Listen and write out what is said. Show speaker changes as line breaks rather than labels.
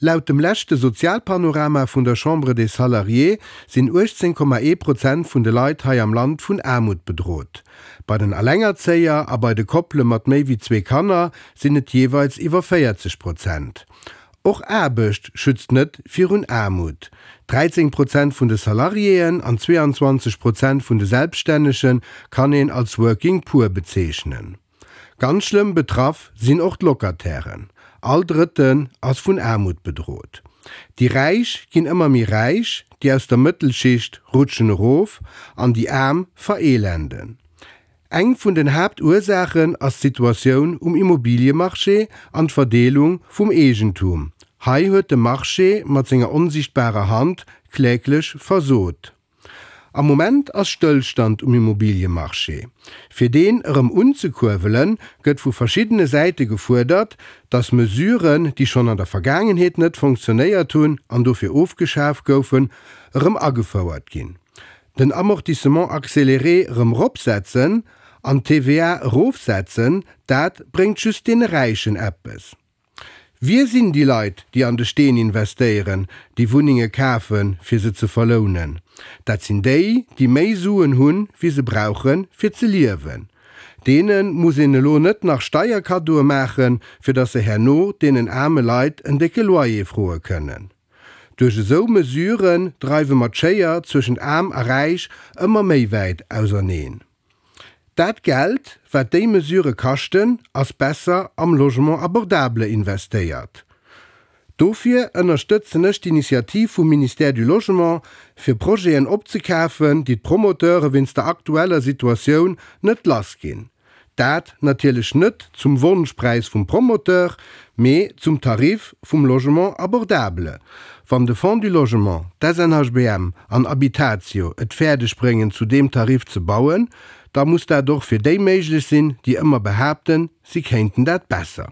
Laut dem leschte Sozialpanorama vun der Chambre des Salariés sinn 18,1 Prozent vun de Leit hei am Land vun Aarmut bedrot. Bei den Allengerzéier a bei de Koppele mat méi wéi zwee Kanner sinn et jeeweils iwwer 40 Prozent. Och Aarbecht schützt net virun Aarmut. 13 Prozent vun de Salariéen an 22 Prozent vun de Selbststännege kann een als Working Poor bezeechnen. Ganz schlëmm betraff sinn och d'Locatairen. All Drëtten ass vun Aarmut bedrot. Déi Räich ginn ëmmer méi räich, déi aus der Mëttelschicht rutschen erof an déi Aarm vereelenden. Eng vun den Haaptursaachen ass d'Situatioun um Immobiliemarché an d'Verdeelung vum Eegentum. Hei huet de Marché mat senger onsiichtbarer Hand kläglech versot. Am Moment ass Stëllstand um Immobiliemarché. Fir deen erëm unzekuerwelen, gëtt vu verschiddene Säite gefuerdert, datt Mesuren, déi schonn an der Vergaangenheet net fonctionnéiert hunn an dofir ofgeschaf goufen, erëm agefouert ginn. Den Amortissement accéléré erëm eropsetzen an d'TVA erofsetzen, dat bréngt just deene Räichen eppes. Wie sinn déi Leit, déi an de Steen investéieren, déi Wunnenge kafen, fir se ze verlounen? Dat sinn déi, déi méi Suen hunn, wéi se brauchen, fir ze liewen. Deene muss een elo net nach Steierkaddoe maachen, fir datt se herno deenen aarme Leit en décke Loyer froe kënnen. Duerch esou Mesuren dreiwe mer d'Schéier zwëschent Aarm a Räich ëmmer méi wäit auserneen. Dat Geld, wat déi Mesure kaschten, ass besser am Logement abordable investéiert. Dofir ënnerstëtzen ech d'Initiativ vum Ministère du Logement, fir Projeten opzekafen, déi d'Promoteure wéinst der aktueller Situatioun net lass ginn. Dat natierlech net zum Wonschpräis vum Promoteur, mee zum Tarif vum Logement abordable. Wann de Fonds du Logement, d'SNHBM an Habitatio et fäerdeg bréngen zu deem Tarif ze bauen, da muss dat och fir déi méiglech sinn, déi ëmmer behaapten, si kéinten dat besser.